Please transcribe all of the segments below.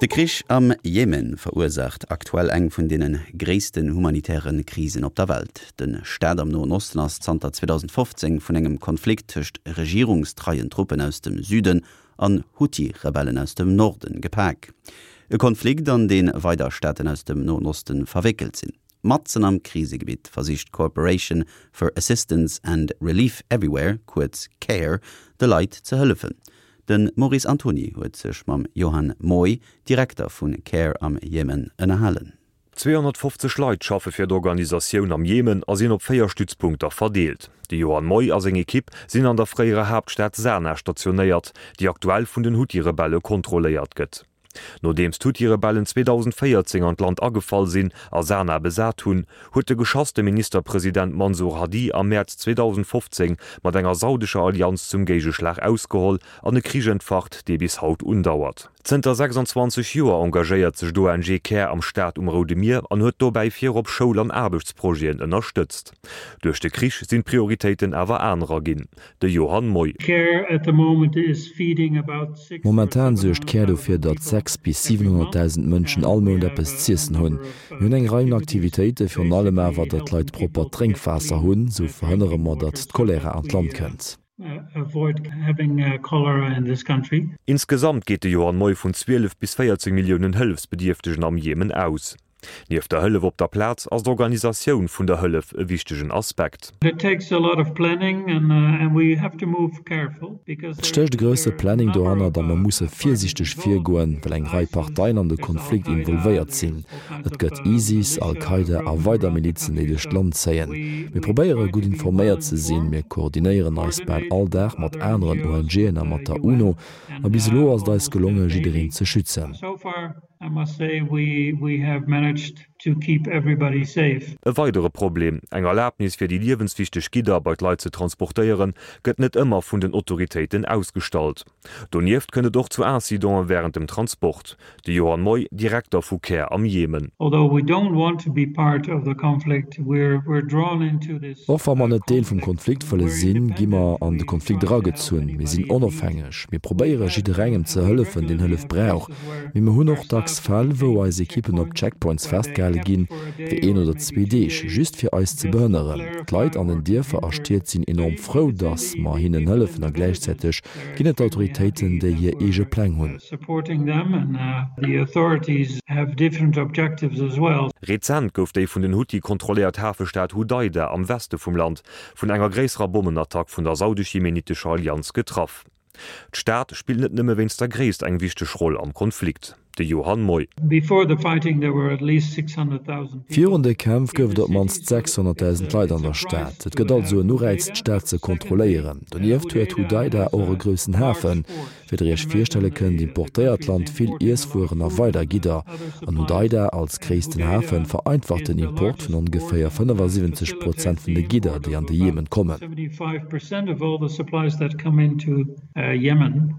De Krich am Jemen verursaacht aktuell eng vun deene gréissten humanitäre Krisen op der Welt. De Staat am Noen Osten ass zanter 2015 vun engem Konflikt tëscht regierungstreien Truppen aus dem Süden an Huthi-Rebellen aus dem Norden gepak. E Konflikt, an dee weider Staaten aus dem Noen Osten verwéckelt sinn. Matzen am Krisegebitt versicht d'Corporation for Assistance and Relief Everywhere, kuerz CARE, de Leit ze hëllefen. De Maurice Antony huet sech mam Johan Moy, Direkter vu CARE am Jemen, ënnerhalen. 250 Leit schaffe fir d'Organisatioun am Jemen a sinn op 4 Stützpunkter verdeelt. De Johan Moy a seng Ekipp sinn an der fréierer Haaptstad Sanaa stationéiert, déi aktuell vun den Huthi-Rebelle kontrolléiert gëtt. Nodeems d'Huthi-Rebellen 2014 an d'Land agefall sinn a Sanaa besat hunn, huet de geschasste Ministerpresident Mansur Hadi am Mäerz 2015 mat enger saudescher Allianz zum Géigeschlag ausgeholl an e Krich entfacht, dee bis haut undauert. Zënter 26 Joer engagéiert sech d'ONG Care am Staat um Roude Mier an huet dobäi virop Schoul an Aarbechtsprojeten ënnerstëtzt. Duerch de Krich sinn d'Prioritéiten awer anerer ginn. De Johann Moy. Momentan suergt Care dofir, datt 6 bis 700.000 Mënschen all Mount eppes z'iessen hunn. Mir hunn eng Rei un Aktivitéiten, virun allem awer, datt d'Leit proppert Drénkwaasser hunn. Sou verhënnere mer, datt d'Cholera an d'Land kënnt. Insgesamt geet de Johann Moy vun 12 bis 14 Milliounen Hëllefsbedierftegen am Jemen aus. Nieft der Hëllef op der Plaz ass d'Organisatioun vun der Hëllef e wichtegen Aspekt. Et stécht e grousse Planning dohannert a mer musse virsiichteg virgoen, well eng Rei Parteien an de Konflikt involvéiert sinn. Et gëtt ISIS, Al-Qaida a weider Milizen, déi duerch d'Land zéien. Mir probéiere gutt informéiert ze sinn, mir koordinéieren eis bal all Dag mat aneren ONGen a mat der UNO. A bis elo ass et eis gelonge jiddereen ze schützen. E weidere Problem, Eng Erlabnis fir déi liewenswichteg Gidder bei d'Leit ze transportéieren, gëtt net ëmmer vun den Autoritéiten ausgestallt. Donieft kënnt et och zu Incidente wärend dem Transport. De Johann Moy, Direkter vu Care am Jemen. Och wa mer net Deel vum Konflikt wëlle sinn, gi mer an de Konflikt eragezunn. Mir sinn onofhängeg. Mir probéiere jidderengem ze hëllefen, deen Hëllef brauch. Mee mer hunn och dacks Fäll, wou eis Ekippen op Checkpoints festgehale ginn, fir een oder zwee Deeg, just fir eis ze behënneren. D'Leit an den Dierfer a Stied sinn enorm frou, datt mer hinnen hëllefen a gläichzäiteg ginn et Autoritéiten, déi hir eege Pläng hunn. Rezent gouf déi vun den Huthi kontrolléiert Hafestad Hudaida am Weste vum Land vun enger gréisserer Bommenattack vun der saudesch-jemenitescher Allianz getraff. D'Stad spillt net nëmme wéinst der Gréisst eng wichteg Roll am Konflikt. De Johann Moy. Virun de Kämpf gouf et op d'mannst 600.000 Leit an der Stad. Et gëtt also en Ureiz, d'Stad ze kontrolléieren. Donieft huet Hudaida och e groussen Hafen. Wéi der iech virstelle kënnt, importéiert d'Land vill Iesswueren a weider Gidder. An Hudaida als gréissten Hafen vereinfacht den Import vun ongeféier 75 Prozent vun de Gidder, déi an de Jemen kommen.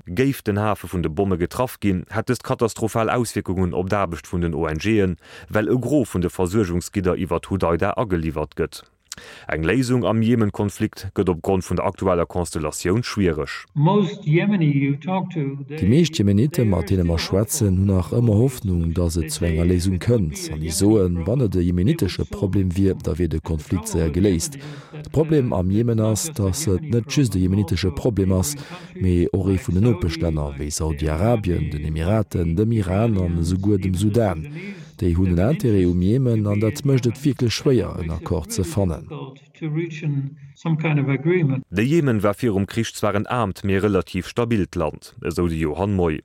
Géif den Hafe vun de Bomme getraff ginn, hätt dëst katastrophal Auswierkungen op d'Aarbecht vun den ONGen, well e Gros vun de Versuergungsgidder iwwert Hudaida ageliwwert gëtt. Eng Léisung am Jemen-Konflikt gëtt op Grond vun der aktueller Konstellatioun schwiereg. Déi meescht Jemenitte mat deene mer schwätzen, hunn nach ëmmer Hoffnung, datt et zu enger Léisung kënnt. An déi soen, wann et e jemenitesche Problem wier, da wier de Konflikt séier geléist. De Problem am Jemen ass, datt et net just e jemenitesche Problem ass, mee och ee vun den Nopeschlänner, wéi Saudi-Arabien, den Emiraten, dem Iran an esouguer dem Sudan. Déi hunn en Interêt um Jemen an dat mécht et wierklech schwéier, en Accord ze fannen. De Jemen war virum Krich zwar en aarmt, mee relativ stabilt Land, esou de Johann Moy.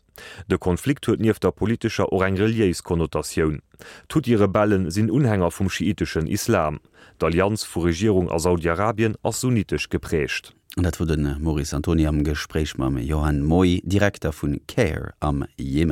De Konflikt huet nieft der politescher och eng reliéis Konnotatioun. D'Huthi-Rebelle sinn Unhänger vum schiiteschen Islam. D'Allianz vu Regierung a Saudi-Arabien ass sunnitesch geprägt. An dat wor de Maurice Antony am Gespréich mam Johann Moy, Direkter vu Care am Jemen.